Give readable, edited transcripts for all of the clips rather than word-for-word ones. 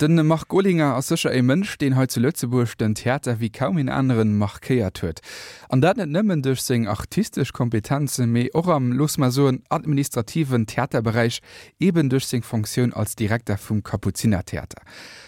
Den Marc Olinger ass sécher e Mënsch, deen hei zu Lëtzebuerg den Theater wéi kaum een aneren markéiert huet. An dat net nëmmen duerch seng artistesch Kompetenzen, mee och am, loosse mer soen, administrativen Theaterberäich, eben duerch seng Fonctioun als Direkter vum Kapuzinertheater.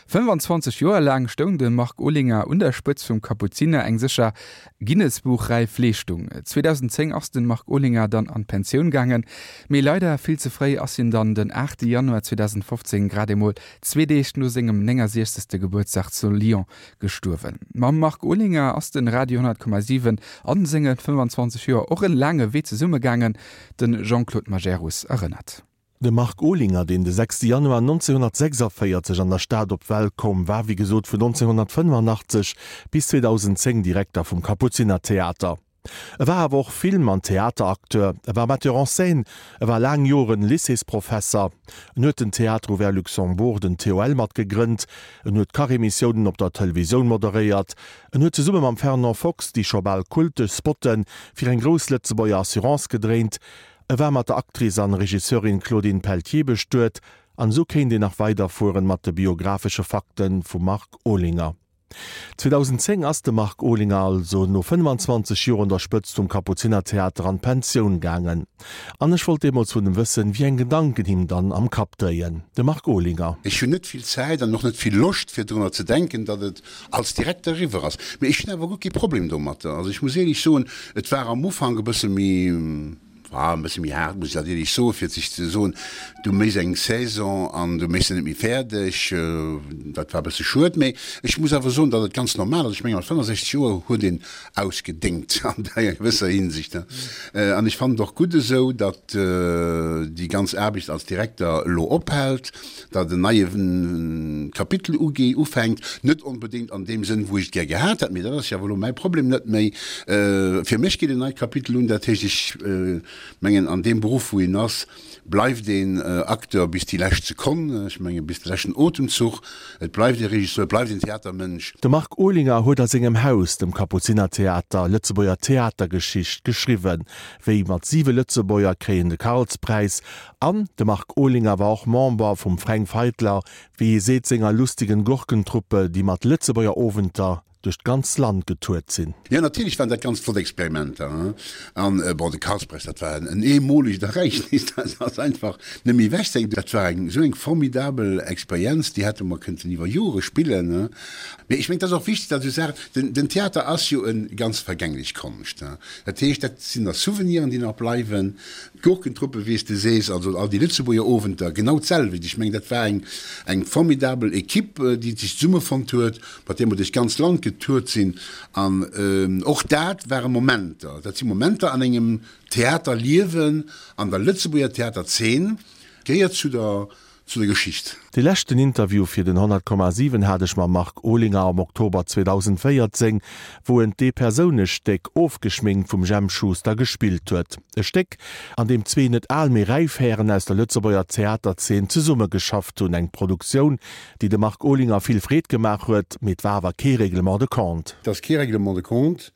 25 Joer laang stoung de Marc Olinger un der Spëtz vum Kapuziner, eng sécher Guinness-Buch-räif Leeschtung. 2010 ass den Marc Olinger dann an d'Pensioun gaangen, mee leider vill ze fréi ass hien dann den 8 Januar 2015, grad emol zwee Deeg no sengem 69. Gebuertsdag zu Lyon gestuerwen. Mam Marc Olinger ass den Radio 10,7 an senge 25 Joer och en laange Wee zesumme gaangen, den Jean-Claude Majerus erënnert. De Marc Olinger, deen de 6 Januar 1946 an der Stad op d'Welt koum, war wéi gesot vun 1985 bis 2010 Direkter vum Kapuzinertheater. E war awer och Film an Theateracteur, e war Metteur en scène, e war laang Joren Lycéesprofesser, en huet den Théâtre Ouvert Luxembourg, den TOL, mat gegrënnt, en huet Kachemissiounen op der Televisioun moderéiert, en huet zesumme mam Fernand Fox déi scho bal kultesch Spotte fir eng grouss Lëtzebuerger Assurance gedréint, E war mat der Actrice an Regisseurin Claudine Peltier bestuet, an esou kéint een nach weiderfueren mat de biographesche Fakten vum Marc Olinger. 2010 ass de Marc Olinger also no 25 Joer un der Spëtzt vum Kapuzinertheater an d'Pensioun gaangen. An ech wollt deemools vun em wëssen, wéi eng Gedanken him dann am Kapp dréien. De Marc Olinger. Ech hunn net vill Zäit an och net vill Loscht fir drunner ze denken, datt et als Direkter eriwwer ass. Mee ech hunn awer guer kee Problem domatter. Also ech muss éierlech soen, et war am Ufank e bësse méi, war e bësse méi haart, muss ech dat éierlech soen, fir sech ze soen, du méchs eng Saison an du méchs se net méi fäerdeg. Dat war e bësse schued. Mee ech muss awer soen, datt et ganz normal ass. Ech menge mat 65 Joer huet een ausgedéngt an enger gewësser Hinsicht. An ech fannen et och gutt esou, datt déi ganz Aarbecht als Direkter elo ophält. datt en neie Kapitel uge ufänkt, net onbedéngt an deem Sënn, wou ech et gär gehat hätt, mee dat ass jo awer elo mäi Problem net méi. Fir mech geet en neit Kapitel un, dat heescht, ech mengen, an deem Beruff, wou een ass, bleift een Acteur bis déi lescht Sekonn, ech menge bis de leschten Otemzuch, et bleift ee Regisseur, et bleift een Theatermënsch. De Marc Olinger huet a sengem Haus, dem Kapuzinertheater, Lëtzebuerger Theatergeschicht geschriwwen, wéi mat siwe Lëtzebuerger kréien de Karlspräis An de Marc Olinger war och Member vum Fränk Feitler, wéi hie seet, senger lustigen Gurkentruppe, déi mat Lëtzebuerger Owenter duerch d'ganz Land getourt sinn. Jo, natierlech waren dat ganz flott Experimenter. An, bon, de Karlspreis, dat war en eemolegt Ereignis, dat ass einfach net méi ewechzedenken. Dat war eng esou eng formidabel Experienz, déi hätte mer kënnten iwwer Jore spillen. Mee ech mengen, et ass och wichteg, datt esou Saachen, den Theater ass jo e ganz vergänglech Konscht. Dat heescht, dat sinn da Souveniren, déi nach bleiwen. D'Gurkentruppe, wéi s de sees, also all déi Lëtzebuerger Owenter, genau d'selwecht. Ech mengen, dat war eng, eng formidabel Equipe, déi sech zesummefonnt huet, mat där mer duerch d'ganz Land getourt sinn. An och dat ware Momenter, dat si Momenter an engem Theaterliewen, an der Lëtzebuerger Theaterzeen, gehéiert zu der zu der Geschicht. Dee leschten Interview fir den 100,7 hat ech mam Marc Olinger am Oktober 2014, wou en d'Eepersounestéck Ofgeschminkt vum Jemp Schuster gespillt huet. E Stéck, an deem zwee net al, mee räif Hären aus der Lëtzebuerger Theaterzeen zesummegeschafft hunn. Eng Produktioun, déi dem Marc Olinger vill Freed gemaach huet, mee et war awer kee Règlement de compte. Et ass kee Règlement de compte,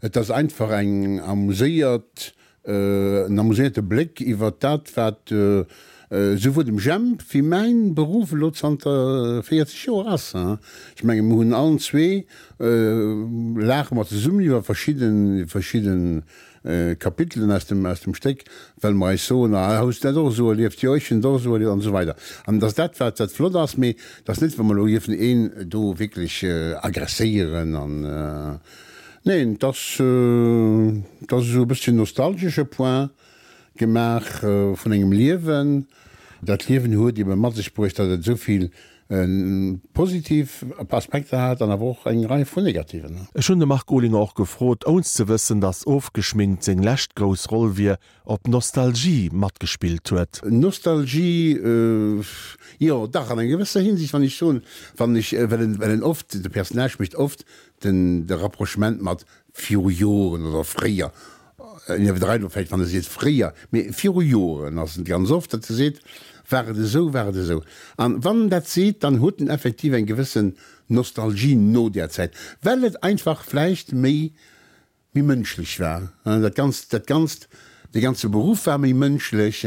et ass einfach eng amuséiert En amuséierte Bléck iwwer dat, wat souwuel dem Jemp wéi mäin Beruff elo zanter 40 Joer ass. Ech menge mir hunn allen zwee, laache mer zesummen iwwer verschidde verschidde Kapitelen aus dem aus dem Stéck, well mer eis soen, ah hues du dat och esou erlieft, jo ech hunn et och esou erlieft an esou weider. An et ass dat wat wat flott ass, mee et ass net, wa mer elo dierfen een do wierklech agresséieren an. Neen, et ass, et ass esou e bësschen nostalgesche Point gemaach vun engem Liewen. Dat Liewen huet ebe mat sech bruecht, datt et esou vill positiv Aspekter hat an awer och eng Rei vun negativen. Ech hunn de Marc Olinger och gefrot, ounst ze wëssen, datt Ofgeschminkt seng lescht grouss Roll wier, ob Nostalgie matgespillt huet. Nostalgie, jo dach, an enger gewësser Hinsicht, wann ech soen, wann ech, well en, well en oft, de Personnage mécht oft Den de Rapprochement mat viru Joren oder fréier, en iwwerdreift elo vläicht, wann e seet fréier, mee viru Joren ass et ganz oft, datt e seet, war et esou, war et esou. An wann en dat seet, dann huet en effektiv eng gewëssen Nostalgie no där Zäit, well et einfach vläicht méi, méi mënschlech war, dat Ganzt, dat Ganzt. De ganze Beruff war méi mënschlech.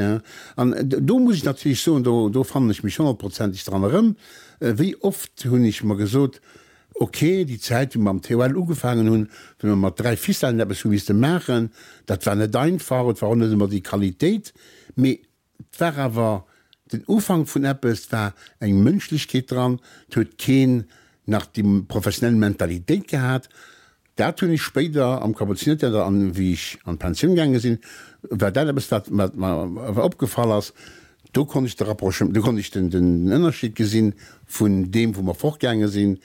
An do muss ech natierlech soen, do, do fannen ech mech honnertprozenteg dran erëm. Wéi oft hunn ech mer gesot, ok, déi Zäit, wou mer am TOL ugefaangen hunn, wou mer mat 3 Ficellen eppes hu misste maachen, dat war net einfach, et war och net ëmmer déi Qualitéit, mee Et war awer den Ufank vun eppes, et war eng Mënschlechkeet dran, et huet keen nach déi professionell Mentalitéit gehat. Dat hunn ech spéider am Kapuzinertheater an wéi ech an d'Pensioun gaange sinn, war dat eppes, wat wat mer opgefall ass. Do konnt ech de Rapprochement, do konnt ech den den Ënnerscheed gesinn vun deem, wou mer fortgaange sinn,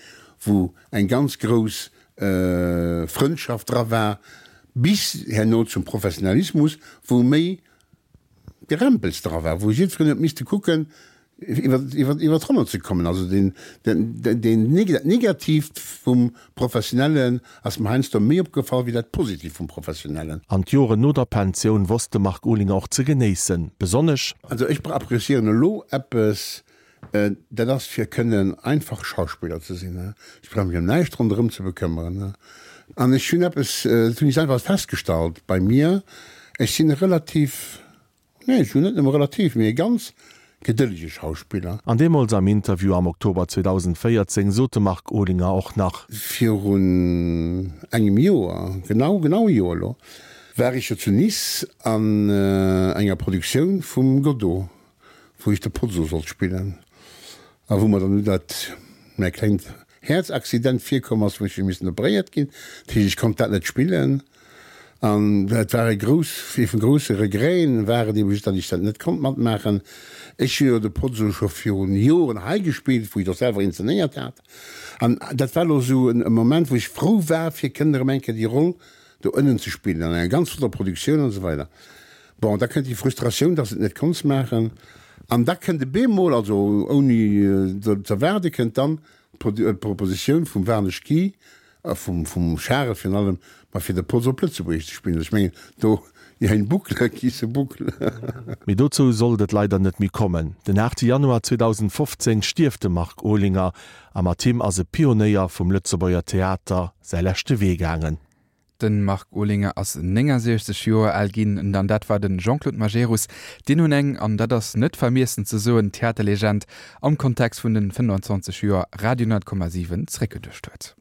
wou eng ganz grouss Frëndschaft dra war, bis herno zum Professionalismus, wou méi Gerempels dra war, wou jiddwereen huet misste kucken, iwwer, iwwer, iwwer d'Ronne ze kommen. Also deen, den, deen, dat Negatiivt vum Professionellen ass mer heiansdo méi opgefall wéi dat Positiivt vum Professionellen. An d'Joren no der Pensioun wosst de Marc Olinger och ze genéissen, besonnesch. Also ech appréciéieren elo eppes, Dat ass fir kënnen einfach Schauspiller ze sinn. Ech brauch mech ëm näischt ronderëm ze bekëmmeren. An ech hunn eppes, dat hunn ech selwer festgestallt bei mir, ech sinn e relativ, nee ech hunn net nëmme relativ, mee e ganz gedëllege Schauspiller. An deemools am Interview am Oktober 2014 sot de Marc Olinger och nach. Virun engem Joer, genau, genau e Joer elo, war ech jo zu Nice an enger Produktioun vum Godot. wou ech de Pozzo sollt spillen a wou mer dann du dat mäi klengt Häerzaccident virkomm ass, wou ech hu missen operéiert ginn. Dat heescht, ech konnt dat net spillen an et war e grouss, ee vun grousse Regreten war et eben just, datt ech dat net konnt matmaachen. Ech hu jo de Pozzo scho virun Joren hei gespillt, wou ech et och selwer inzenéiert hat an dat war elo esou e Moment, wou ech frou war, fir kënnen erëm eng Kéier déi Roll do ënnen ze spillen an enger ganz flotter Produktioun an esou weider. Bon, da kënnt déi Frustratioun, dass et net konns maachen. An da kënnt e bemol, also ouni z'erwaarde kënnt dann d'Propositioun vum Warnesch Guy a vum vum Charel virun allem, ma fir de Poz op Lëtzebuergesch ze spillen. Ech mengen, do, il y a une boucle qui se boucle. Mee dozou sollt et leider net méi kommen. Den 8 Januar 2015 stierft de Marc Olinger a mat him ass e Pionéier vum Lëtzebuerger Theater säi leschte Wee gaangen. Den Marc Olinger ass 69 Joer al ginn, an dat war den Jean-Claude Majerus, deen hunn eng, an dat ass net vermiessen ze soen, Theaterlegend am Kontext vun den 25 Joer Radio 10,7 zréckgeduecht huet.